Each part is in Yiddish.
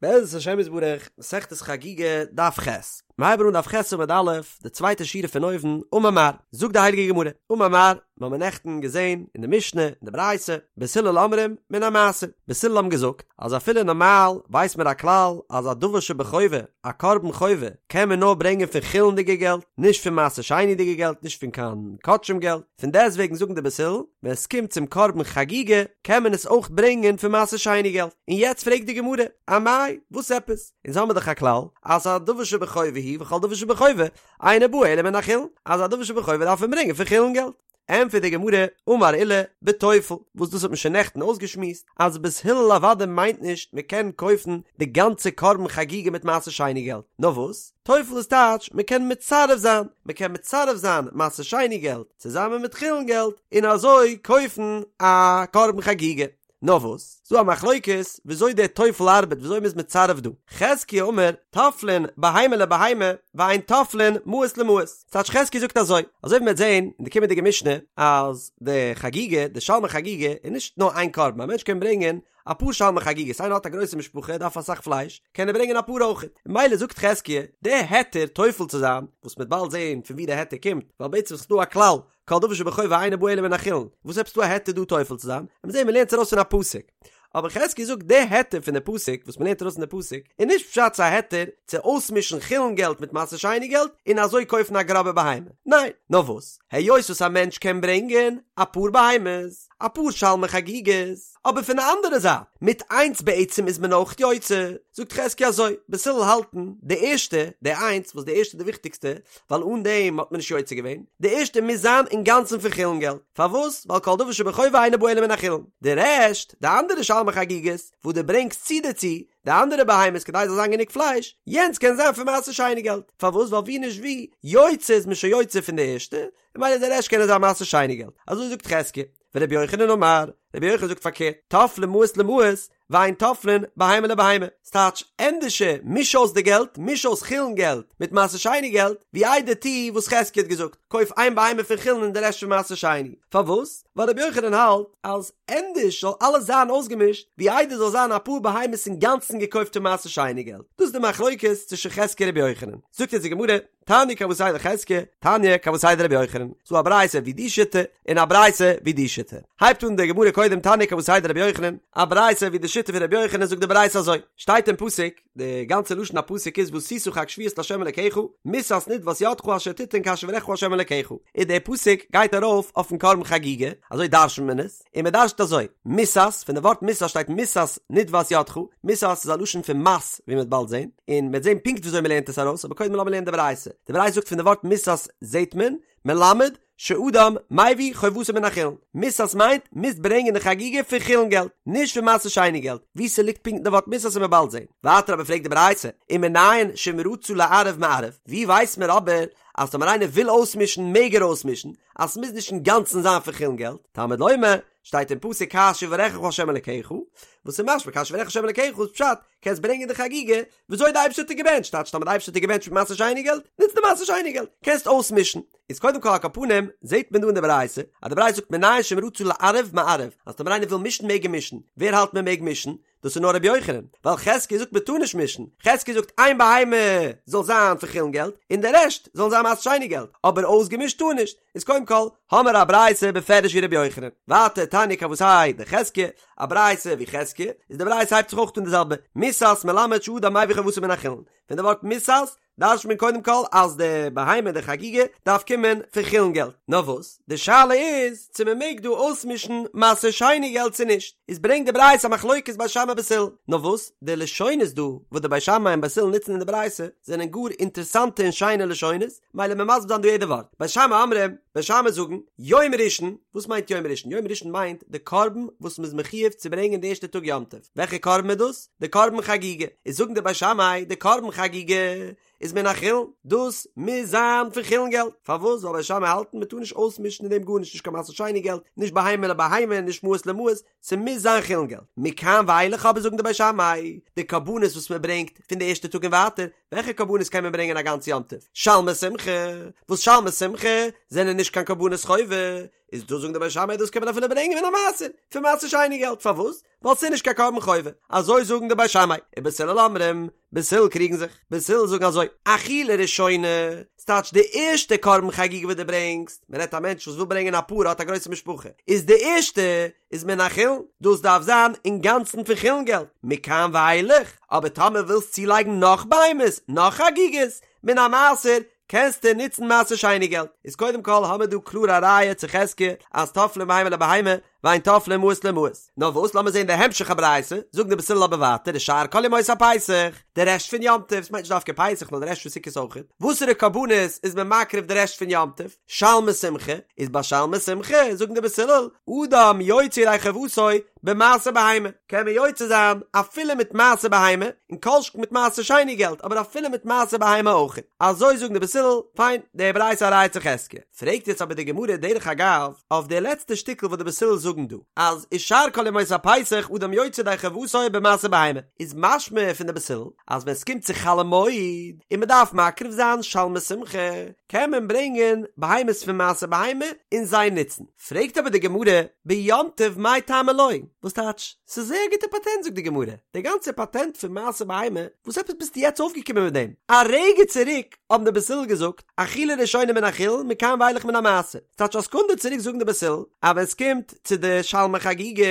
בעזרת השם יתברך, מסכת חגיגה, דף ח'. מיר הייבן אן דף ח' עמוד א', די צווייטע שורה פון אויבן, אמר מר, זאגט די הייליגע גמרא, אמר מר, מיר האבן נעכטן געזען אין די משנה, אין די ברייתא, בית הלל אומרים, מן המעשר. בית הלל האבן געזאגט, אז אפילו נארמאל ווייסט מען א כלל אז א דבר שבחובה, א קרבן חובה, קען מען נאר ברענגען פון חולין'דיגע געלט, נישט פון מעשר שני'דיגע געלט, נישט פון קיין קדשים געלט. פון דעסטוועגן זאגן די בית הלל, ווען עס קומט צום קרבן חגיגה, קען מען עס אויך ברענגען פון מעשר שני געלט. און יעצט פרעגט די גמרא, אמאי, וואס עפעס? אונז האמיר דאך א כלל, אז א דבר שבחובה הוא וכל דבר שבחובה, אינו בא אלא מן החולין, אז א דבר שבחובה דארף מען ברענגען פון חולין געלט. ענטפערט די גמרא, אמר עולא, בטופל, וואס דאס האט מען שוין נעכטן אויסגעשמועסט, אז בית הלל אוודאי מיינט נישט מען קען קויפן די גאנצע קרבן חגיגה מיט מעשר שני געלט, נאר וואס? טופל איז טייטש מען קען מצרף זיין, מען קען מצרף זיין מעשר שני געלט צוזאמען מיט חולין געלט און אזוי קויפן א קרבן חגיגה. נאר וואס, ס'דא א מחלוקת וויאזוי דער טופל ארבעט וויאזוי מ'איז מצרף דא. חזקיה אמר, טופלין בהמה לבהמה ואין טופלין מעות למעות. ס'טייטש חזקיה זאגט אזוי, אזוי ווי מ'וועט זען אין די קומענדיגע משנה אז די חגיגה, די שלמי חגיגה איז נישט נאר איין קרבן, א מענטש קען ברענגען אפאר שלמי חגיגות, איינער האט א גרויסע משפחה דארף אסאך פלייש, קען ער ברענגען אפאר אויכעט, ממילא זאגט חזקיה, די היתר טופל צו זיין, וואס מ'וועט באלד זעהן פון ווי די היתר קומט, ווייל בעצם איז דא א כלל, כל דבר שבחובה אינו בא אלא מן החולין, וואס עפעס דא א היתר דא טופל צו זיין, מ'וועט זעהן מ'לערנט עס ארויס פון א פסוק. אבער חזקיה זאגט די היתר פון די פסוק, וואס מ'לערנט ארויס פון די פסוק, איז נישט פשט ס'איז א היתר צו אויסמישן חולין געלט מיט מעשר שני געלט און אזוי קויפן א גראבע בהמה, ניין, נאר וואס, היות וואס א מענטש קען ברענגען אפאר בהמות, אפאר שלמי חגיגות, אבער פון די אנדערע זייט, מיט איינס בעצם איז מען אויך יוצא, זאגט חזקיה אזוי, בית הלל האלטן, די ערשטע, די איינס, וואס די ערשטע איז די וויכטיגסטע, ווייל אן דעם האט מען נישט יוצא געווען, די ערשטע מוז זיין אינגאנצן פון חולין געלט, פארוואס? ווייל כל דבר שבחובה אינו בא אלא מן החולין, די רעשט, די אנדערע שלמי חגיגות, וואס דו ברענגסט צו דערצו, די אנדערע בהמות כדי ס'זאל זיין גענוג פלייש, יענץ קען זיין פון מעשר שני געלט, פארוואס? ווייל ווי נישט ווי, יוצא איז מען שוין יוצא פון די ערשטע, ממילא די רעשט קען זיין מעשר שני געלט, אזוי זאגט חזקיה. ורבי יוחנן אמר, רבי יוחנן זאגט פארקערט, טופלין מעות למעות, ואין טופלין בהמה לבהמה, ס'טייטש, ענדערשער מיש אויס די געלט, מיש אויס חולין געלט מיט מעשר שני געלט, ווי איידער טו וואס חזקיה האט געזאגט, קויף איין בהמה פון חולין און די רעשט פון מעשר שני. פארוואס? ווייל רבי יוחנן האלט אז ענדערש זאל אלעס זיין אויסגעמישט, ווי איידער זאל זיין אפאר בהמות אינגאנצן געקויפט פון מעשר שני געלט. דאס איז די מחלוקת צווישן חזקיה און רבי יוחנן. זאגט יעצט די גמרא, תניא כוותיה דחזקיה, תניא כוותיה דרבי יוחנן, ס'דא א ברייתא ווי די שיטה, און א ברייתא ווי די שיטה. הייבט אן די גמרא קודם תניא כוותיה דרבי יוחנן, א ברייתא ווי די שיטה פון רבי יוחנן זאגט די ברייתא אזוי, שטייט אין פסוק, די גאנצע לשון הפסוק איז ועשית חג שבועות לה' אלקיך, מסת נדבת ידך אשר תתן כאשר יברכך ה' אלקיך, און די פסוק גייט ארויף אויפן קרבן חגיגה, אזוי דרש'נט מען עס, און מען דרש'נט אזוי, מסת, פון די ווארט מסת שטייט מסת נדבת ידך, מסת איז א לשון פון מס, ווי מען וועט באלד זען, און מען וועט זען פונקט וויאזוי מען לערנט עס ארויס, אבער קודם לאמיר לערנען די ברייתא, די ברייתא זאגט פון די ווארט מסת זעט מען, מלמד, שאדם מביא חובתו מן החולין, מסת מיינט, מוזט ברענגען די חגיגה פון חולין געלט, נישט פון מעשר שני געלט, וואו ס'ליגט פונקט די ווארט מסת וועט מען באלד זען. ווייטער אבער פרעגט די ברייתא, ומנין שאם רצה לערב מערב, ווי ווייסט מען אבער אז טאמער איינער וויל אויסמישן מעג ער אויסמישן, אז ס'מוז נישט אינגאנצן זיין פון חולין געלט, תלמוד לומר, שטייט אין פסוק כאשר יברכך ה' אלקיך, וואס איז משמע כאשר יברכך ה' אלקיך איז פשט, קענסט ברענגען די חגיגה וויאזוי די אייבערשטער האט דיר געבענטשט, טייטש טאמער די אייבערשטער האט דיר געבענטשט מיט מעשר שני געלט, נוץ די מעשר שני געלט, קענסט אויסמישן. איז קודם כל על כל פנים, זעט מען דא אין די ברייתא, אז די ברייתא זאגט מנין שאם רצה לערב מערב, אז טאמער איינער וויל מישן מעג ער מישן, ווער האלט מען מעג מישן? דאס איז נאר רבי יוחנן, ווייל חזקיה זאגט מען טאר נישט מישן, חזקיה זאגט איין בהמה זאל זיין פון חולין געלט, און די רעשט זאלן זיין מעשר שני געלט, אבער אויסגעמישט טאר נישט, איז קודם כל האמער א ברייתא בפירוש ווי רבי יוחנן, ווייטער תניא כוותיה דחזקיה, א ברייתא ווי חזקיה, איז די ברייתא הייבט זיך אויך אן די זעלבע, מסת מלמד שאדם מביא חובתו מן החולין, פון די ווארט מסת דרש'ט מען קודם כל אז די בהמה די חגיגה דארף קומען פון חולין געלט, נאר וואס די שאלה איז צו מען מעג דא אויסמישן מעשר שני געלט צו נישט, איז ברענגט די ברייתא א מחלוקת בית שמאי בית הלל, נאר וואס די לשונות דא וואס די בית שמאי און בית הלל נוצן אין די ברייתא זענען גאר אינטערסאנטע און שיינע לשונות, מילא מיר מסביר זיין דא יעדע ווארט, בית שמאי אומרים, בית שמאי זאגן, יום ראשון, וואס מיינט יום ראשון? יום ראשון מיינט די קרבן וואס מ'איז מחיוב צו ברענגען די ערשטע טאג יום טוב, וועלכע קרבן איז דאס? די קרבן חגיגה, איז זאגן די בית שמאי די קרבן חגיגה איז מן החולין, דאס מוז זיין פון חולין געלט, פארוואס? ווייל בית שמאי האלטן מ'טאר נישט אויסמישן אין דעם גארנישט נישט קיין מעשר שני געלט, נישט בהמה לבהמה, נישט מעות למעות, ס'מוז זיין חולין געלט. מכאן ואילך אבער זאגן די בית שמאי, די קרבנות וואס מ'ברענגט פון די ערשטע טאג און ווייטער, וועלכע קרבנות קען מען ברענגען א גאנץ יום טוב? שלמי שמחה, וואס שלמי שמחה זענען נישט קיין קרבנות חובה, איז דא זאגן די בית שמאי דאס קען מען אפילו ברענגען מן המעשר, פון מעשר שני געלט, פארוואס? ווייל ס'איז נישט קיין קרבן חובה, אזוי זאגן די בית שמאי, ובית הלל אומרים, בית הלל קריגן זיך, בית הלל זאגן אזוי, אכילה ראשונה, ס'טייטש די ערשטע קרבן חגיגה וואס דו ברענגסט, מ'רעדט א מענטש וואס וויל ברענגען א פר האט א גרויסע משפחה, איז די ערשטע איז מן החולין, דאס דארף זיין אינגאנצן פון חולין געלט, מכאן ואילך, אבער טאמער ווילסט צולייגן נאך בהמות, נאך חגיגות, מן המעשר, קענסטו נוצן מעשר שני געלט. איז קודם כל האמיר דא קלאר א ראיה צו חזקיה אז טופלין בהמה לבהמה ואין טופלין מעות למעות. נאר וואס לאמיר זען די המשך הברייתא, זאגן די בית הלל אבער ווייטער ושאר כל ימות הפסח, די רעשט פון יום טוב, ס'מיינט נישט דווקא פסח נאר די רעשט פון סוכות אויכעט, וואסערע קרבנות איז מען מקריב די רעשט פון יום טוב? שלמי שמחה, איז ביי שלמי שמחה זאגן די בית הלל, אדם יוצא ידי חובתו במעשר בהמה, קען מען יוצא זיין אפילו מיט מעשר בהמה, און כל שכן מיט מעשר שני געלט, אבער אפילו מיט מעשר בהמה אויך. אזוי זאגן די בית הלל, פיין, די ברייתא א ראיה צו חזקיה. פרעגט יעצט אבער די גמרא דרך אגב, אויף די לעצטע שטיקל וואס די בית הלל זאגן דא, אז ושאר כל ימות הפסח אדם יוצא ידי חובתו במעשר בהמה, איז משמע פון די בית הלל, אז ווען ס'קומט צו חול המועד, און מ'דארף מקריב זיין שלמי שמחה, קען מען ברענגען בהמות פון מעשר בהמה און זיי נוצן. פרעגט אבער די גמרא, ביום טוב מאי טעמא לא? וואס טייטש? ס'איז זייער א גוטע פאטענט זאגט די גמרא, די גאנצע פאטענט פון מעשר בהמה, וואס עפעס ביסטו יעצט אויפגעקומען מיט דעם? א רגע צוריק האבן די בית הלל געזאגט, אכילה ראשונה מן החולין מכאן ואילך מן המעשר, ס'טייטש א סעקונדע צוריק זאגן די בית הלל, אז ווען ס'קומט צו די שלמי חגיגה,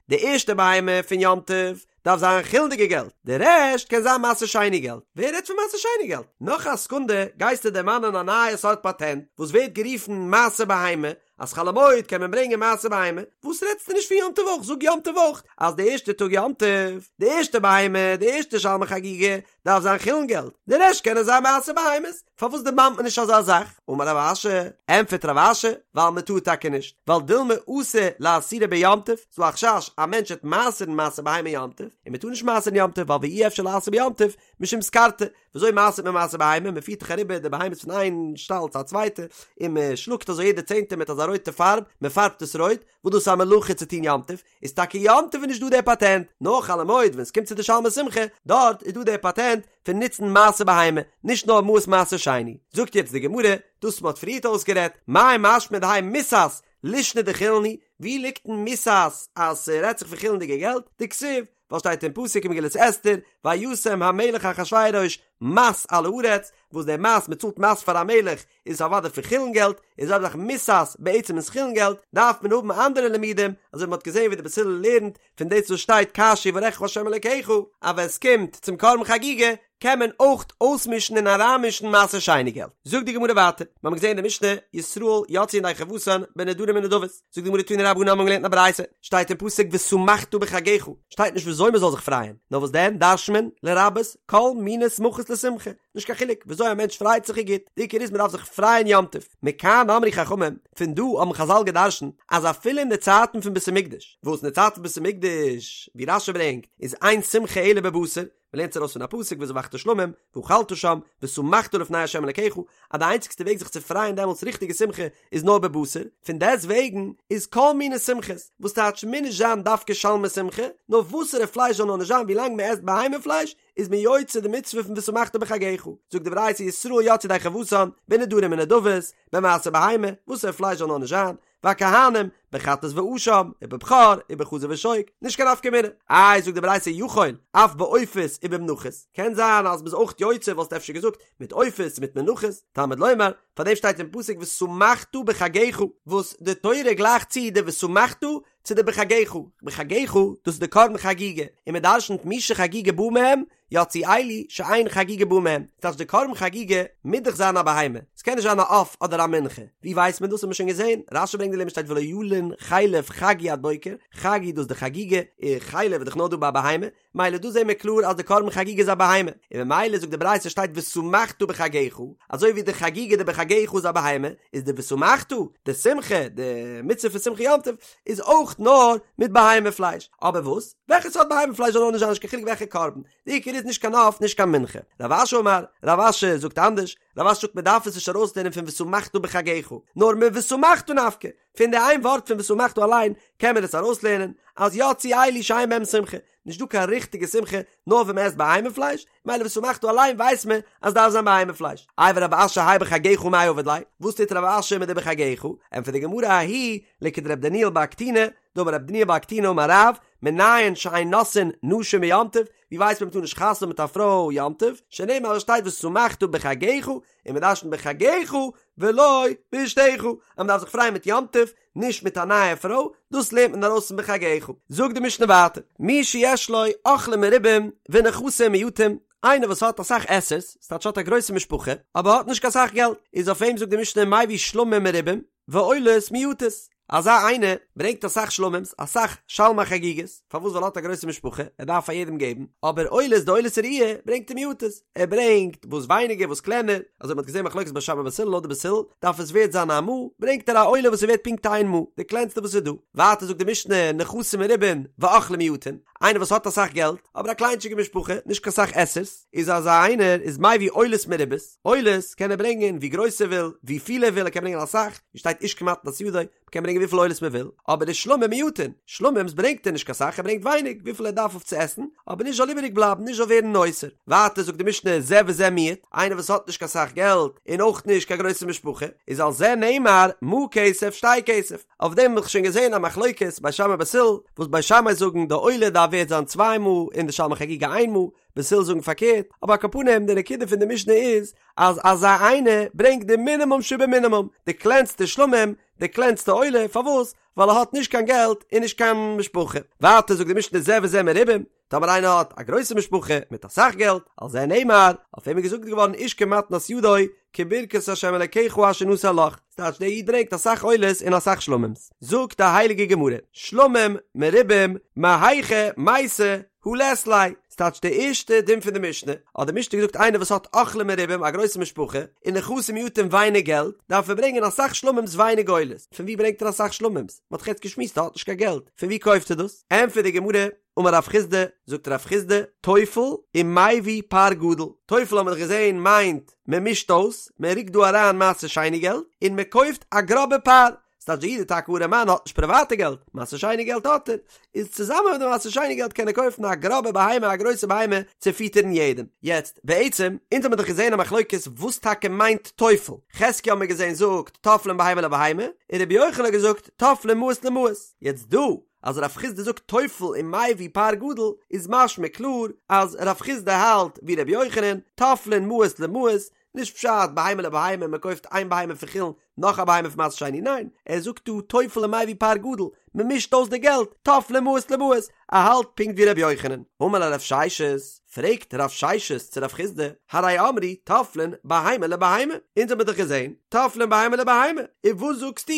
די ערשטע בהמה פון יום טוב, דארף זיין חולין'דיגע געלט, די רעשט קען זיין מעשר שני געלט, ווער רעדט פון מעשר שני געלט? נאך א סעקונדע גייסטו דערמאנען א נייע סארט פאטענט וואס ווערט גערופן מעשר בהמה, אז חול המועד קען מען ברענגען מעשר בהמה, וואס רעדסטו נישט פון יום טוב אויך, זאג יום טוב אויך אז די ערשטע טאג יום טוב, די ערשטע בהמה, די ערשטע שלמי חגיגה, דארף זיין חולין געלט, די רעשט קענען זיין מעשר בהמות, פארוואס דערמאנט מען נישט אזא זאך? אמר רב אשי, ענטפערט רב אשי, ווייל מען טאר טאקע נישט, ווייל דילמא אתי לאעשורי ביום טוב, ס'דא א חשש א מענטש וועט מעשר'ן מעשר בהמה יום טוב, און מען טאר נישט מעשר'ן יום טוב ווייל ואי אפשר לעשר ביום טוב משום סקרתא, וויאזוי מעשר'ט מען מעשר בהמה? מען פירט דאך אריבער די בהמות פון איין שטאל צו א צווייטע, און מען שלאגט אזוי יעדע צענטע מיט אזא רויטע פארב, מען פארבט עס רויט, וואס דאס איז א מלאכה צו טון יום טוב, איז טאקע יום טוב איז נישט דא דער פאטענט, נאר חול המועד ווען ס'קומט צו די שלמי שמחה, דארט איז דא דער פאטענט פון נוצן מעשר בהמה, נישט נאר מעות מעשר שני. זאגט יעצט די גמרא, דאס מ'האט פריערט אויסגערעדט, מאי משמע דהאי מסת לישנא דחולין הוא, ווי ליגט אין מסת אז ס'רעדט זיך פון חולין'דיגע געלט, דכתיב, ווייל שטייט אין פסוק אין מגילת אסתר, וישם המלך אחשורוש מס על הארץ, וואס דער מס, מען צאלט מס פאר א מלך, איז אוודאי פון חולין געלט, איז אויב זאך מסת בעצם איז חולין געלט, דארף מען האבן אנדערע לימודים, אזוי ווי מען האט געזען ווי די בית הלל לערנט פון דאס וואס שטייט כאשר יברכך ה' אלקיך, אז ווען עס קומט צום קרבן חגיגה קען מען אויך אויסמישן און אריינמישן מעשר שני געלט. זאגט די גמרא ווייטער, מיר האבן געזען אין די משנה, ישראל יצאו ידי חובתן בנדרים ונדבות, זאגט די גמרא תנו רבנן האבן געלערנט אין א ברייתא, שטייט אין פסוק ושמחת בחגך, שטייט נישט וויאזוי מען זאל זיך פרייען, נאר וואס דען דרש'נט מען, לרבות כל מיני שמחות לשמחה, נישט קיין חילוק וויאזוי א מענטש פרייט זיך איז גוט, די עיקר איז מען דארף זיך פרייען יום טוב, מכאן אמרו חכמים, פון דא האבן חזל געדרשנט אז אפילו אין די צייטן פון בית המקדש, וואס אין די צייטן פון בית המקדש, ווי רש"י ברענגט, איז אין שמחה אלא בבשר, מען לערנט עס ארויס פון א פסוק וזבחת שלמים ואכלת שם ושמחת לפני ה' אלקיך, אז די איינציגסטע וועג זיך צו פרייען דעמאלטס ריכטיגע שמחה איז נאר בבשר, פון דעסט וועגן איז כל מיני שמחות, וואס טייטש מוז נישט זיין דווקא שלמי שמחה, נאר וואסערע פלייש זאל נאר נישט זיין ווילאנג מען עסט בהמה פלייש איז מען יוצא די מצוה פון ושמחת בחגך, זאגט די ברייתא ישראל יצאו ידי חובתן בנדרים ונדבות, במעשר בהמה, וואסערע פלייש זאל נאר נישט זיין, והכהנים, בחטאת ואשם, ובבכור, ובחזה ושוק, נישט קיין נפקא מינה. איי זאגט די ברייתא יכול, אף בעופות ובמנחות, קען זיין אז מ'איז אויך יוצא וואלסטו אפשר געזאגט מיט עופות מיט מנחות, תלמוד לומר, פארדעם שטייט אין פסוק ושמחת בחגך, וואס די תורה גלייכט צו די ושמחת צו די בחגך, בחגך דאס איז די קרבן חגיגה, און מ'דרשנ'ט מי שחגיגה באה מהם, יצאו אלו שאין חגיגה באה מהם, ס'טייטש די קרבן חגיגה מוז דאך זיין א בהמה, ס'קען נישט זיין א עוף אדער א מנחה, ווי ווייסט מען דאס האט מען שוין געזען, רש"י ברענגט די לימוד שטייט ולא ילין חלב חגי עד בוקר, חגי דאס די חגיגה, און חלב איז דאך נאר דא ביי א בהמה, מילא דא זעהן מיר קלאר אז די קרבן חגיגה איז א בהמה, און ממילא זאגט די ברייתא שטייט ושמחת בחגך, אזוי ווי די חגיגה די בחגך איז א בהמה, איז די ושמחת, די שמחה, די מצוה פון שמחה יום טוב, איז אויך נאר מיט בהמה פלייש, אבער וואס? וועלכע סארט בהמה פלייש זאל נאר נישט זיין נישט קיין חילוק וועלכע קרבן, די עיקר איז נישט קיין עוף נישט קיין מנחה. רב אשי אמר, רב אשי זאגט אנדערש, רב אשי זאגט מען דארף עס נישט ארויסלערנען פון ושמחת בחגך, נאר מושמחת נפקא, פון די איין ווארט פון ושמחת אליין קען מען עס ארויסלערנען אז יצאו אלו שאין בהם שמחה. נישט דא קיין ריכטיגע שמחה נאר ווען מען עסט בהמה פלייש, מילא ושמחת אליין ווייסט מען אז דארף זיין בהמה פלייש. איי ורב אשי האי בחגך מאי עביד ליה, וואס טוט רב אשי מיט די בחגך? ענטפערט די גמרא ההיא לכדרב דניאל בר קטינא, דאמר רב דניאל בר קטינא אמר רב, מנין שאין נושאין נשים ביום טוב, ווי ווייסט מען מ'טאר נישט חתונה האבן מיט א פרוי יום טוב, שנאמר עס שטייט ושמחת בחגך, און מ'דרש'נט בחגך ולא באשתך, אז מ'דארף זיך פרייען מיט יום טוב, נישט מיט א נייע פרוי, דאס לערנט מען ארויס פון בחגך. זאגט די משנה ווייטער, מי שיש לו אוכלים מרובים ונכסים מועטים, איינער וואס האט אסאך עסערס, ס'טייטש האט א גרויסע משפחה, אבער האט נישט קיין סאך געלט, איז אויף אים זאגט די משנה מביא שלמים מרובים ועולות מועטות, אזא איינער ברענגט אסאך שלמים'ס, אסאך שלמי חגיגות, פארוואס ווייל ער האט א גרויסע משפחה, ער דארף פאר יעדעם געבן, אבער עולות די עולת ראיה ברענגט ער מועטות, ער ברענגט וואס ווייניגער וואס קלענער, אזוי מ'האט געזען מחלוקת בית שמאי בית הלל לויט די בית הלל דארף עס ווערט זיין א מעה, ברענגט ער א עולה וואס איז ווערט פונקט איין מעה, די קלענסטע וואס איז דא. ווייטער זאגט די משנה נכסים מרובין ואוכלים מועטין, איינער וואס האט אסאך געלט, אבער א קליינטשיגע משפחה, נישט קיין סאך עסערס, איז אזא איינער איז מביא עולות מרובות, עולות קען ער ברענגען ווי גרויס ער וויל, ווי פיל ער וויל, ער קען ברענגען אסאך, ווי שטייט איש כמתנת ידו, מ'קען ברענגען וויפיל עולות מען וויל, אבער די שלמים מועטין, שלמים'ס ברענגט ער נישט קיין סאך, ער ברענגט ווייניג, וויפיל ער דארף אויף צו עסן, אבער נישט זאל איבעריג בלייבן, נישט זאל ווערן נותר. ווייטער זאגט די משנה זה וזה מיעוט, איינער וואס האט נישט קיין סאך געלט, און אויך נישט קיין גרויסע משפחה, איז על זה נאמר מעה כסף שתי כסף, אויף דעם האב איך שוין געזען א מחלוקת בית שמאי בית הלל, וואס בית שמאי זאגן די עולה דארף ווערט זיין צוויי מעה און די שלמי חגיגה איין מעה, בית הלל זאגן פארקערט, אבער על כל פנים די נקודה פון די משנה איז אז אזא איינער ברענגט די מינימום שבמינימום, די קלענסטע שלמים, די קלענסטע עולה, פארוואס? ווייל ער האט נישט קיין געלט און נישט קיין משפחה. ווייטער זאגט די משנה זה וזה מרובים, טאמער איינער האט א גרויסע משפחה מיט אסאך געלט, על זה נאמר, אויף אים איז געזאגט געווארן איש כמתנת ידו, כברכת ה' אלקיך אשר נתן לך, ס'טייטש דער איד ברענגט אסאך עולות און אסאך שלמים'ס. זאגט די הייליגע גמרא, שלמים מרובים מהיכא מייתי הא לית ליה, ס'טייטש די ערשטע דין פון די משנה, האט די משנה געזאגט איינער וואס האט אוכלים מרובים א גרויסע משפחה, און נכסים מועטים ווייניג געלט, דארף ער ברענגען אסאך שלמים'ס ווייניג עולות, פון ווי ברענגט ער אסאך שלמים'ס? מ'האט דאך יעצט געשמועסט ער האט נישט קיין געלט, פון ווי קויפט ער דאס? ענטפערט די גמרא, אמר רב חסדא, זאגט רב חסדא, טופל ומביא פר גדול, טופל האבן מיר דאך געזען מיינט מען מישט אויס, מען רוקט דא אריין מעשר שני געלט, און מען קויפט א גראבע פר, ס'טייטש דער איד איז טאקע ארעמאן האט נישט פריוואטע געלט, מעשר שני געלט האט ער, איז צוזאמען מיט די מעשר שני געלט קען ער קויפן א גראבע בהמה א גרויסע בהמה צו פיטערן יעדעם. יעצט, בעצם, אונז האמיר דאך געזען א מחלוקת וואס טאקע מיינט טופל, חזקיה האמיר געזען זאגט טופלין בהמה לבהמה, און רבי יוחנן האט געזאגט טופלין מעות למעות, יעצט דא אז רב חסדא זאגט טופל ומביא פר גדול איז משמע קלאר אז רב חסדא האלט ווי רבי יוחנן, טופלין מעות למעות, נישט פשט בהמה לבהמה מען קויפט איין בהמה פון חולין נאך א בהמה פון מעשר שני ניין ער זאגט דא טופל ומביא פר גדול מען מישט אויס די געלט טופלין מעות למעות ער האלט פונקט ווי רבי יוחנן. אמר ליה רב ששת, פרעגט רב ששת צו רב חסדא, הרי אמרו טופלין בהמה לבהמה, אונז האמיר דאך געזען טופלין בהמה לבהמה, און וואס זאגסטו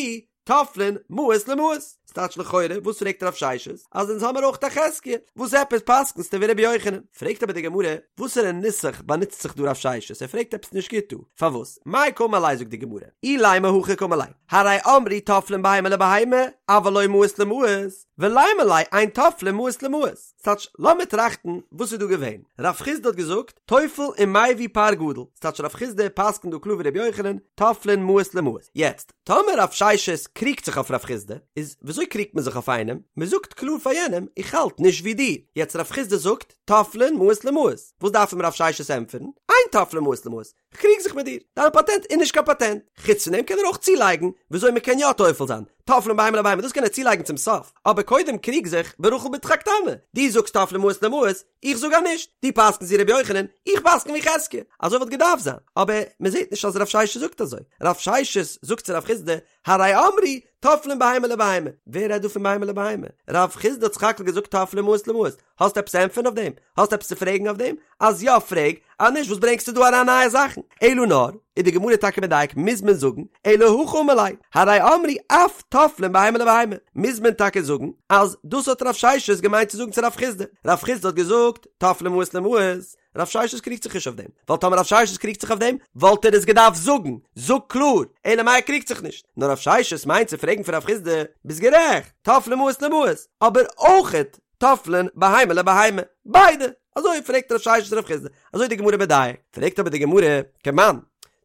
טופלין מעות למעות, ס'טייטש לכאורה, וואס פרעגט רב ששת? אז אונז האמיר אויך א חזקיה, וואס עפעס פסק'נסטו ווי רבי יוחנן? פרעגט אבער די גמרא, וואסערע נוסח באנוצט זיך דא רב ששת? ער פרעגט עפעס נישט גוט דא, פארוואס? מאי קאמר ליה זאגט די גמרא, אילימא הכי קאמר ליה, הרי אמרו טופלין בהמה לבהמה, אבל לא מעות למעות, ולימא ליה אין טופלין מעות למעות. ס'טייטש, לאמיר טראכטן וואס איז דא געווען? רב חסדא האט געזאגט, טופל ומביא פר גדול, ס'טייטש רב חסדא פסק'נט דא קלאר ווי רבי יוחנן, טופלין מעות למעות. יעצט, טאמער רב ששת קריגט זיך אויף רב חסדא, איז וויאזוי קריגט מען זיך אויף איינעם? מען זאגט קלאר פאר יענעם, איך האלט נישט ווי דיר. יעצט רב חסדא זאגט, טופלין מעות למעות. וואס דארף אים רב ששת ענטפערן? אין טופלין מעות למעות. כ'קריג זיך מיט דיר. דיין פאטענט איז נישט קיין פאטענט. חוץ פון דעם קען ער אויך צולייגן וויאזוי מען קען יא טופל זיין. טופלין בהמה לבהמה, דאס קען ער צולייגן צום סוף. אבער קודם קריג זיך ברחל בתך הקטנה. דו זאגסט טופלין מעות למעות, איך זאג אז נישט, דו פסק'נסט ווי ר' יוחנן, איך פסק'ן ווי חזקיה, אזוי וואלט געדארפט זיין, אבער מען זעט נישט אז רב ששת זאגט אזוי, רב ששת זאגט צו רב חסדא, הרי אמרו טופלין בהמה לבהמה, ווער רעדט דא פון בהמה לבהמה? רב חסדא האט סך הכל געזאגט טופלין מעות למעות, האסט עפעס צו ענטפערן אויף דעם? האסט עפעס צו פרעגן אויף דעם? אז יא פרעג, אז נישט וואס ברענגסטו דא אריין נייע זאכן? אלא נאר, איז די גמרא טאקע מדייק מוז מען זאגן, אלא הכי אמר ליה, הרי אמרו אף טופלין בהמה לבהמה, מוז מען טאקע זאגן אז דאס האט רב ששת געמיינט צו זאגן צו רב חסדא, רב חסדא האט געזאגט טופלין מעות למעות, רב ששת קריגט זיך נישט אויף דעם, ווייל טאמער רב ששת קריגט זיך אויף דעם וואלט ער עס געדארפט זאגן, זאג קלאר, אלא מאי ער קריגט זיך נישט, נאר רב ששת מיינט צו פרעגן פון רב חסדא, ביסט גערעכט, טופלין מעות למעות, אבער אויכעט טופלין בהמה לבהמה, ביידע, אזוי פרעגט רב ששת רב חסדא, אזוי די גמרא מדייק, פרעגט אבער די גמרא, כמאן,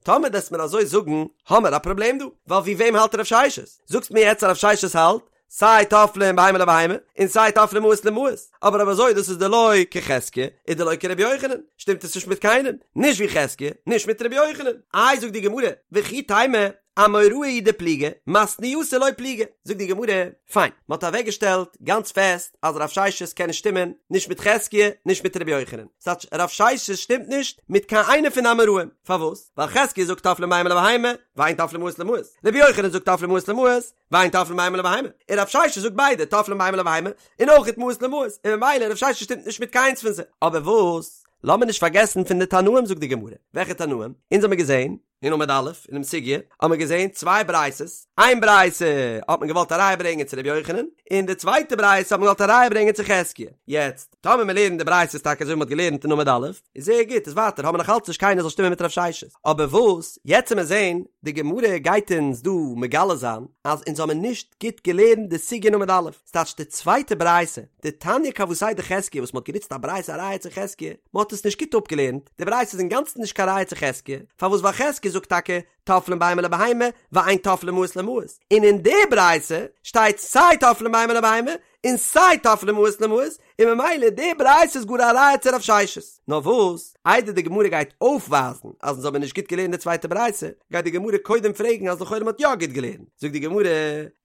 טאמער דו'סט מיר אזוי זאגן, האמער א פראבלעם דא, ווייל ווי וועם האלט רב ששת? זאגסט מיר יעצט אז רב ששת האלט? סיי טופלין בהמה לבהמה, און סיי טופלין מעות למעות, אבער אויב אזוי דאס איז דלא כחזקיה, און דלא כרבי יוחנן, שטימט עס נישט מיט קיינעם, נישט ווי חזקיה, נישט מיט רבי יוחנן. איי זאגט די גמרא, וכי תימא, אמוראי הוא דפליגי, מתניתא לא פליגי, זאגט די גמרא, פיין, מען האט אוועקגעשטעלט גאנץ פעסט אז רב ששת קען נישט שטימען נישט מיט חזקיה נישט מיט רבי יוחנן, ס'טייטש רב ששת שטימט נישט מיט קיין איינע פון די אמוראים, פארוואס? ווייל חזקיה זאגט טופלין בהמה לבהמה, ואין טופלין מעות למעות, רבי יוחנן זאגט טופלין מעות למעות, ואין טופלין בהמה לבהמה, און רב ששת זאגט ביידע טופלין בהמה לבהמה און אויכעט מעות למעות, און ממילא רב ששת שטימט נישט מיט קיינס פון זיי. אבער וואס? לאמיר נישט פארגעסן פון די תנאים זאגט די גמרא, וועלכע תנאים? אונז האמיר געזען אין עמוד א' אינעם סוגיא האט מען געזען צוויי ברייתות, איין ברייתא האט מען געוואלט א ראיה ברענגען צו ר' יוחנן, און די צווייטע ברייתא האט מען געוואלט א ראיה ברענגען צו חזקיה. יעצט, טאמער מען לערנט די ברייתות טאקע אזוי ווי מען האט געלערנט אין עמוד א', איז זייער גוט, איז ווייטער האבן מיר נאך אלץ נישט קיינער זאל שטימען מיט רב ששת. אבער וואס, יעצט וועט מען זען, די גמרא גייט אונז דא מגלה זיין, אז אונז האבן נישט גוט געלערנט די סוגיא אין עמוד א', ס'טייטש די צווייטע ברייתא, דתניא כוותיה דחזקיה וואס מ'האט גענוצט א ברייתא א ראיה צו חזקיה, מ'האט עס נישט גוט אפגעלערנט, די ברייתא איז אינגאנצן נישט קיין ראיה צו חזקיה, פארוואס ווייל חזקיה זאגט טאקע טופלין בהמה לבהמה ואין טופלין מעות למעות, און אין די ברייתא שטייט סיי טופלין בהמה לבהמה און סיי טופלין מעות למעות, און ממילא די ברייתא איז גאר א ראיה צו רב ששת. נאר וואס, איידער די גמרא גייט אויפווייזן אז אונז האבן נישט גוט געלערנט די צווייטע ברייתא, גייט די גמרא קודם פרעגן אז לכאורה מ'האט יא גוט געלערנט. זאגט די גמרא,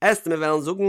עסט מיר וועלן זאגן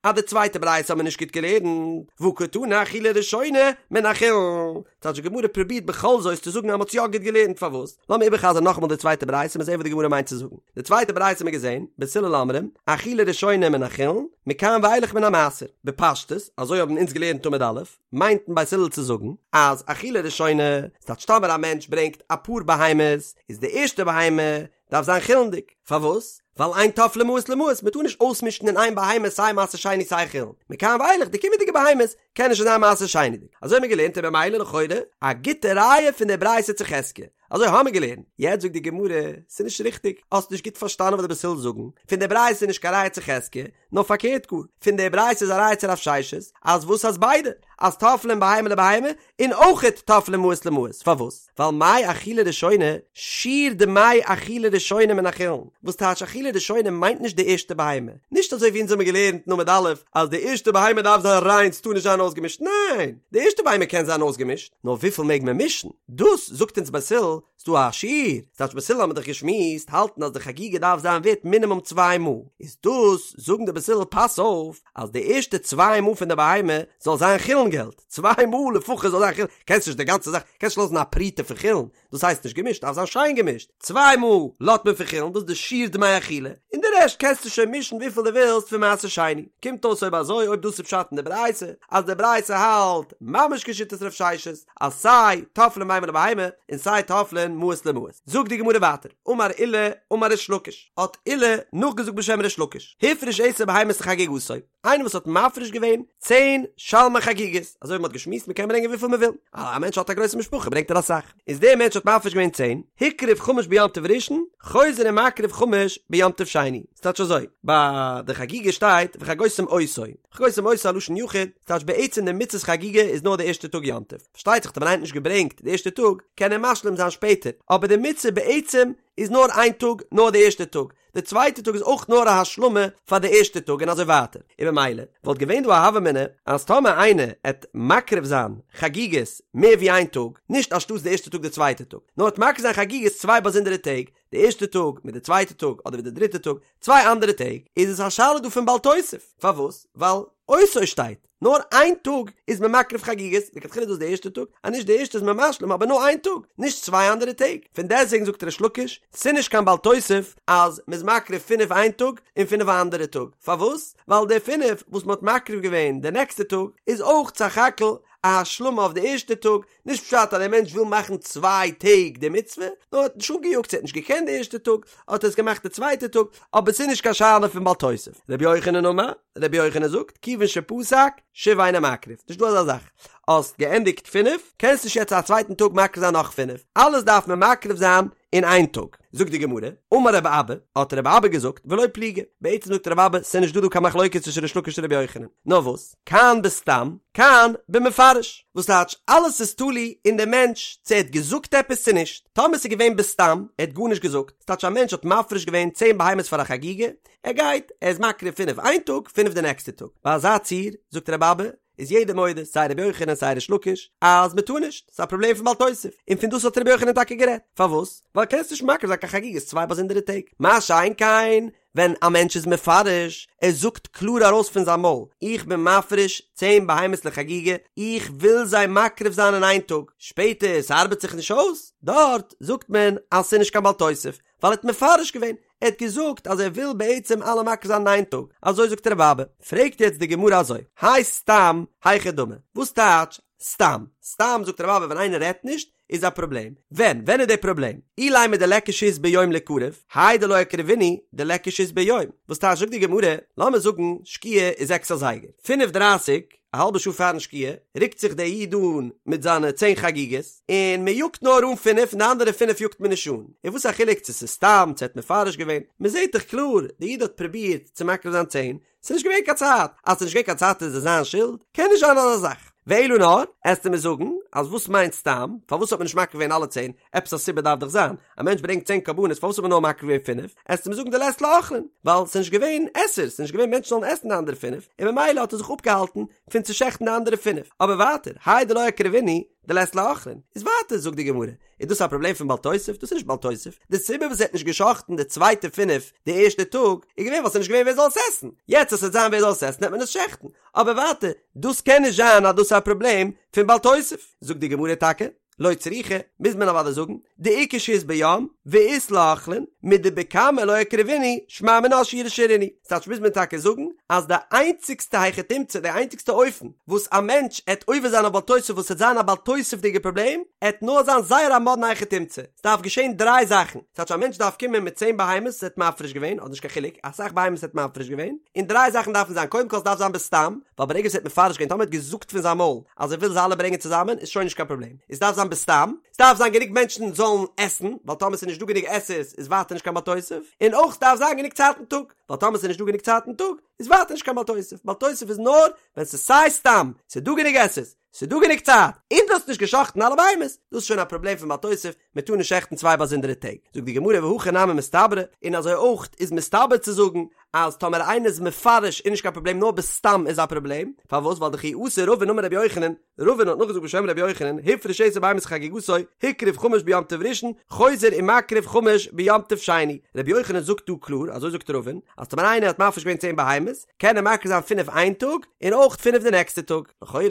אז די צווייטע ברייתא האבן מיר נישט גוט געלערנט, והא קתני אכילה ראשונה מן החולין. טייטש די גמרא פרובירט בכל זאת צו זאגן אז מ'האט יא גוט געלערנט, פארוואס? לאמיר איבערחזרן נאכאמאל די צווייטע ברייתא מיר זעהן וואס די גמרא מיינט צו זאגן. די צווייטע ברייתא האבן מיר געזעהן, בית הלל אומרים, אכילה ראשונה מן החולין, מכאן ואילך מן המעשר. בפשטות, אזוי האבן אונז געלערנט עמוד א', מיינט בית הלל צו זאגן, אז אכילה ראשונה, ס'טייטש טאמער א מענטש ברענגט אפאר בהמות, איז די ערשטע בהמה דארף זיין חולין'דיג. פארוואס? ווייל אין טופלין מעות למעות, מ'טאר נישט אויסמישן אין איין בהמה סיי מעשר שני סיי חולין. מכאן ואילך די קומענדיגע בהמות קענען שוין זיין מעשר שני'דיג. אזוי האבן מיר געלערנט און במילא לכאורה א גוטע ראיה פון די ברייתא צו חזקיה. אזוי האמיר געלערנט. יעצט זאגט די גמרא, ס'איז נישט ריכטיג, האסט נישט גוט פארשטאנען וואס די בית הלל זאגן, פון די ברייתא איז נישט קיין ראיה צו חזקיה, נאר פארקערט גאר, פון די ברייתא איז א ראיה צו רב ששת, אז וואס אז ביידע, אז טופלין בהמה לבהמה, און אויכעט טופלין מעות למעות, פארוואס? ווייל מאי אכילה ראשונה, שיעור דמי אכילה ראשונה מן החולין, וואס טייטש אכילה ראשונה מיינט נישט די ערשטע בהמה, נישט אזוי ווי אונז האמיר געלערנט אין עמוד א' אז די ערשטע בהמה דארף זיין ריין ס'טאר נישט זיין אויסגעמישט, ניין! די ערשטע בהמה קען זיין אויסגעמישט, נאר וויפיל מעג מען מישן? דאס זאגט אונז בית הלל, ס'דא א שיעור, ס'טייטש בית הלל האבן מיר דאך געשמועסט, האלטן אז די חגיגה דארף זיין ווערט מינימום צוויי מעה, איז דאס זאגן די בית הלל פאס אויף אז די ערשטע צוויי מעה פון די בהמה זאל זיין חולין געלט, צוויי מעה לפחות זאל זיין חולין, קענסט נישט די גאנצע זאך, קענסט נישט לאזן א פרוטה פון חולין, דאס הייסט נישט געמישט, דארף זיין שיין געמישט, צוויי מעה לאזט מען פון חולין, דאס איז די שיעור דמי אכילה, און די רעשט קענסטו שוין מישן וויפיל דו ווילסט פון מעשר שני, קומט אויס אויב אזוי אויב דאס איז פשט אין די ברייתא, אז די ברייתא האלט ממש כשיטת רב ששת, אז סיי טופלין בהמה לבהמה און סיי טופלין מעות למעות. זאגט די גמרא ווייטער, אמר עולא אמר ריש לקיש, האט עולא נאכגעזאגט בשם ריש לקיש, הפריש עשר בהמות לחגיגתו, איינער וואס האט מפריש געווען צען שלמי חגיגות, אזוי ווי מען האט געשמועסט מען קען ברענגען וויפיל מען וויל, א מענטש האט א גרויסע משפחה ברענגט ער אסאך, איז דער מענטש האט מפריש געווען צען, הקריב חמש ביום טוב ראשון, חוזר ומקריב חמש ביום טוב שני, ס'טייטש אזוי, ביי די חגיגה שטייט וחגותם אותו, וחגותם אותו א לשון יחיד, ס'טייטש בעצם די מצות חגיגה איז נאר די ערשטע טאג יום טוב, פארשטייט זיך טאמער איינער האט נישט געברענגט די ערשטע טאג קען ער משלים זיין שפעטער, אבער די מצוה בעצם איז נאר איין טאג נאר די ערשטע טאג, די צווייטע טאג איז אויך נאר א השלמה פאר די ערשטע טאג און אזוי ווייטער, און במילא וואלט געווען דא א הוה אמינא אז טאמער איינער עט מקריב זיין חגיגות מער ווי איין טאג, נישט אנשטאטס די ערשטע טאג די צווייטע טאג, נאר עט מקריב זיין חגיגות צוויי באזונדערע טעג, די ערשטע טאג מיט די צווייטע טאג אדער מיט די דריטע טאג, צוויי אנדערע טעג, איז עס א שאלה דא פון בל תוסיף, פארוואס? ווייל אותו שטייט, נאר איין טאג איז מען מקריב חגיגות, לכתחילה איז דאס די ערשטע טאג, אז נישט די ערשטע איז מען משלים אבער נאר איין טאג, נישט צוויי אנדערע טעג, פון דעסטוועגן זאגט ריש לקיש, ס'נישט קיין בל תוסיף אז מ'איז מקריב פינף איין טאג און פינף א אנדערע טאג, פארוואס? ווייל די פינף וואס מ'האט מקריב געווען די נעקסטע טאג איז אויך סך הכל א השלמה אויף די ערשטע טאג, נישט פשט אז דער מענטש וויל מאכן צוויי טעג די מצוה, נאר ער האט נישט אנגעיאגט, ער האט נישט געקענט די ערשטע טאג, האט ער עס געמאכט די צווייטע טאג, אבער ס'איז נישט קיין שאלה פון בל תוסיף. רבי יוחנן אמר, רבי יוחנן זאגט, כיוון שפסק, שוב אינו מקריב, נישט דא אזא זאך. האסט געענדיגט פינף, קענסט נישט יעצט א צווייטן טאג מקריב זיין נאך פינף, אלעס דארף מען מקריב זיין אין איין טאג. זאגט די גמרא, אמר רבי אבא, האט רבי אבא געזאגט, ולא פליגי, בעצם זאגט רבי אבא, ס'איז נישט דא דא קיין מחלוקת צווישן ריש לקיש און רבי יוחנן, נאר וואס, כאן בסתם, כאן במפרש, וואס טייטש, אלעס איז תלוי אין די מענטש צו ער האט געזאגט עפעס צו נישט, טאמער ס'איז געווען בסתם, ער האט גארנישט געזאגט, ס'טייטש א מענטש האט מפריש געווען צען בהמות פאר א חגיגה, ער גייט, ער איז מקריב פינף איין טאג, פינף די נעקסטע טאג, ביי אזא ציור, זאגט רבי אבא, איז יעדער מודה, סיי רבי יוחנן סיי ריש לקיש, אז מען טאר נישט, ס'איז א פראבלעם פון בל תוסיף, און פון דאס האט רבי יוחנן טאקע גערעדט, פארוואס? ווייל קענסט נישט מקריב זיין קיין חגיגות צוויי באזונדערע טעג, מה שאין כן ווען א מענטש איז מפרש, ער זאגט קלאר ארויס פון זיין מויל, איך בין מפריש צען בהמות לחגיגה, איך וויל זיי מקריב זיין אין איין טאג, שפעטער ס'ארבעט זיך נישט אויס, דארט זאגט מען אז ס'איז נישט קיין בל תוסיף, ווייל ער האט מפרש געווען, ער האט געזאגט אז ער וויל בעצם אלע מקריב זיין אין איין טאג, אזוי זאגט רבי אבא. פרעגט יעצט די גמרא אזוי, האי סתם היכי דמי, וואס טייטש סתם? סתם זאגט רבי אבא ווען איינער רעדט נישט איז א פראבלעם, ווען? ווען איז די פראבלעם? אילימא דליכא שהות ביום ליקרב, האי דלא אקרבינהו דליכא שהות ביום, וואס טייטש זאגט די גמרא, לאמיר זאגן שקיעה איז זעקס אזייגער, פינף דרייסיג, א האלבע שעה פארן שקיעה, רוקט זיך דער איד אן מיט זיינע צען חגיגות, און מען יאגט נאר אן פינף און די אנדערע פינף יאגט מען נישט אן. און וואס א חילוק צו ס'איז סתם, צו ער האט מפרש געווען, מען זעט דאך קלאר, דער איד האט פרובירט צו מקריב זיין צען, ס'איז נישט געווען קיין צייט, אז ס'איז נישט געווען קיין צייט איז עס זיין שולד? קען נישט זיין אזא זאך. ואלא נאר, עסטו מיר זאגן, אז וואס מיינט סתם, פארוואס האט מען נישט מקריב געווען אלע צען, עפעס א סיבה דארף דאך זיין, א מענטש ברענגט צען קרבנות פארוואס האט מען נאר מקריב געווען פינף, עסטו מיר זאגן דלית ליה אוכלין, ווייל ס'איז נישט געווען עסערס, ס'איז נישט געווען מענטשן זאלן עסן די אנדערע פינף, און ממילא האט ער זיך אפגעהאלטן פון צו שעכטן די אנדערע פינף, אבער ווייטער, האי דלא אקרבינהו, דלית ליה אוכלין, איז ווייטער זאגט די גמרא, איז דאס א פראבלעם פון בל תוסיף? דאס איז נישט בל תוסיף, די סיבה וואס ער האט נישט געשאכטן די צווייטע פינף די ערשטע טאג, איז געווען ווייל ס'איז נישט געווען ווער זאל עס עסן, יעצט אז ס'וועט זיין ווער זאל עס עסן וועט מען עס שעכטן, אבער ווייטער, דאס קען נישט זיין אז דאס איז א פראבלעם פון בל תוסיף, זאגט די גמרא טאקע, לא צריכא, מוז מען אוודאי זאגן, דאיכא שהות ביום, ואית ליה אוכלין, מדבקמא לא אקרבינהו, שמע מינה שיורי שרינהו. ס'טייטש מוז מען טאקע זאגן, אז די איינציגסטע היכי תמצא, די איינציגסטע אופן, וואס א מענטש עט עובר זיין אויף בל תוסיף וואס עט זיין א בל תוסיף'דיגע פראבלעם, עט נאר זיין זייער א מאדנע היכי תמצא. ס'דארף געשען דריי זאכן. ס'טייטש א מענטש דארף קומען מיט צען בהמות וואס ער האט מפריש געווען, אדער נישט קיין חילוק, אסאך בהמות ער האט מפריש געווען, און דריי זאכן דארפן זיין, קודם כל ס'דארף זיין בסתם, ווייל ברגע וואס ער האט מפרש געווען, טאמער ער האט געזאגט פון זיין מויל, אז ער וויל זיי אלע ברענגען צוזאמען איז שוין נישט קיין פראבלעם, עס דארף זיין בסתם, עס דארף זיין גענוג מענטשן זאלן עסן, ווייל טאמער עס איז נישט דא גענוג עסערס איז ווייטער נישט קיין בל תוסיף, און אויך עס דארף זיין גענוג צייט אין טאג, ווייל טאמער עס איז נישט דא גענוג צייט אין טאג איז ווייטער נישט קיין בל תוסיף, בל תוסיף איז נאר ווען עס איז סיי סתם, עס איז דא גענוג עסערס, עס איז דא גענוג צייט, און דו האסט נישט גע'שחט'ן אלע בהמות, דאס איז שוין א פראבלעם פון בל תוסיף, מען טאר נישט שעכטן צוויי באזונדערע טעג, זאגט די גמרא והכי נמי מסתברא, און אזוי אויך איז מסתבר צו זאגן אז טאמער איינער איז מפרש איז נישט קיין פראבלעם נאר בסתם איז א פראבלעם, פארוואס ווייל דכי אתא רבין אמר רבי יוחנן, רבין האט נאכגעזאגט בשם רבי יוחנן, הפריש עשר בהמות לחגיגתו, הקריב חמש ביום טוב ראשון, חוזר ומקריב חמש ביום טוב שני, רבי יוחנן זאגט דא קלאר, אזוי זאגט רבין, אז טאמער איינער האט מפריש געווען צען בהמות, קען ער מקריב זיין פינף איין טאג, און אויך פינף די נעקסטע טאג, לכאורה,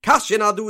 קשיין אהדדי,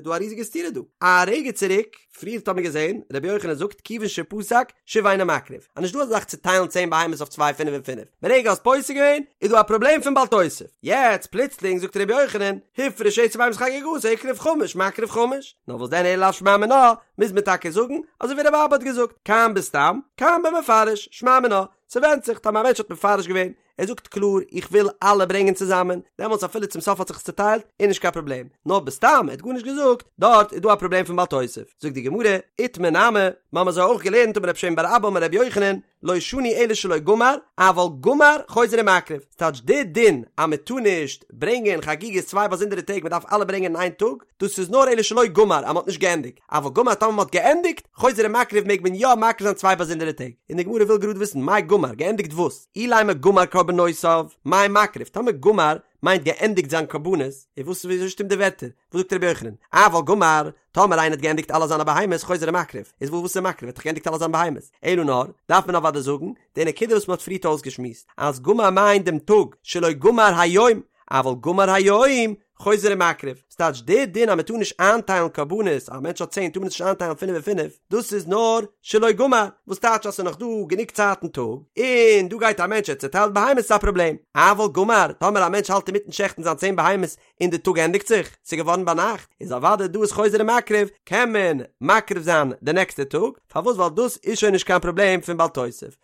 דא א ריזיגע סתירה דא, א רגע צוריק, פריערט האט מען געזען, רבי יוחנן זאגט כיוון שפסק, שוב אינו מקריב, אז נישט דא אזא זאך צו טיילן צען בהמות אויף צוויי פינף און פינף, ברגע האסט פוסק געווען, איז דא א פראבלעם פון בל תוסיף, יעצט פלוצלינג זאגט רבי יוחנן, הפריש עשר בהמות לחגיגתו הקריב חמש מקריב חמש, נאר וואס דען אלא לאו שמע מינה, מוז מען טאקע זאגן, אזוי ווי רבי אבא האט געזאגט, כאן בסתם, כאן במפרש, שמע מינה, ס'ווענדט זיך, טאמער א מענטש האט מפרש געווען, ער זאגט קלאר איך וויל אלע ברענגען צוזאמען, דעמאלטס אפילו צום סוף האט זיך עס צוטיילט איז נישט קיין פראבלעם, נאר בסתם ער האט גארנישט געזאגט, דארט איז דא א פראבלעם פון בל תוסיף, זאגט די גמרא, איתמר נמי, מיר האבן אזוי אויך געלערנט אמר רב שמן בר אבא אמר רבי יוחנן, לא שנו אלא שלא גמר, אבל גמר חוזר ומקריב, ס'טייטש די דין אז מען טאר נישט ברענגען חגיגות צוויי באזונדערע טעג מען דארף אלע ברענגען אין איין טאג, דאס איז נאר אלא שלא גמר אז מען האט נישט געענדיגט. אבל גמר טאמער מ'האט געענדיגט, חוזר ומקריב מעג מען יא מקריב זיין צוויי באזונדערע טעג, און די גמרא וויל גראד וויסן מאי גמר, געענדיגט וואס? אילימא גמר קרבנותיו, מאי מקריב, טאמער גמר מיינט געענדיגט זיין קרבנות, איז וואס וויאזוי שטימט די ווערטער? וואס זאגט רבי יוחנן? אבל גמר, טאמער איינער האט געענדיגט אלע זיינע בהמות חוזר ומקריב, איז וואס איז מקריב? ער האט דאך געענדיגט אלע זיינע בהמות, אלא נאר, דארף מען אוודאי זאגן, די נקודה וואס מ'האט פריערט אויסגעשמועסט, אז גמר מיינט דעם טאג, שלא גמר היום, אבל גמר היום, חוזר ומקריב, ס'טייטש די דין אז מ'טאר נישט איינטיילן קרבנות, א מענטש האט צען טאר מען עס נישט איינטיילן פינף און פינף, דאס איז נאר שלא גמר, וואס טייטש אז ס'איז נאך דא גענוג צייט אין טאג, און דא גייט א מענטש ער צעטיילט בהמות איז א פראבלעם, אבל גמר, טאמער א מענטש האלט אינמיטן שעכטן זיין צען בהמות און די טאג ענדיגט זיך, ס'איז געווארן ביינאכט, איז אוודאי דא איז חוזר ומקריב, קען מען מקריב זיין די נעקסטע טאג, פארוואס ווייל דאס איז שוין נישט קיין פראבלעם פון בל תוסיף.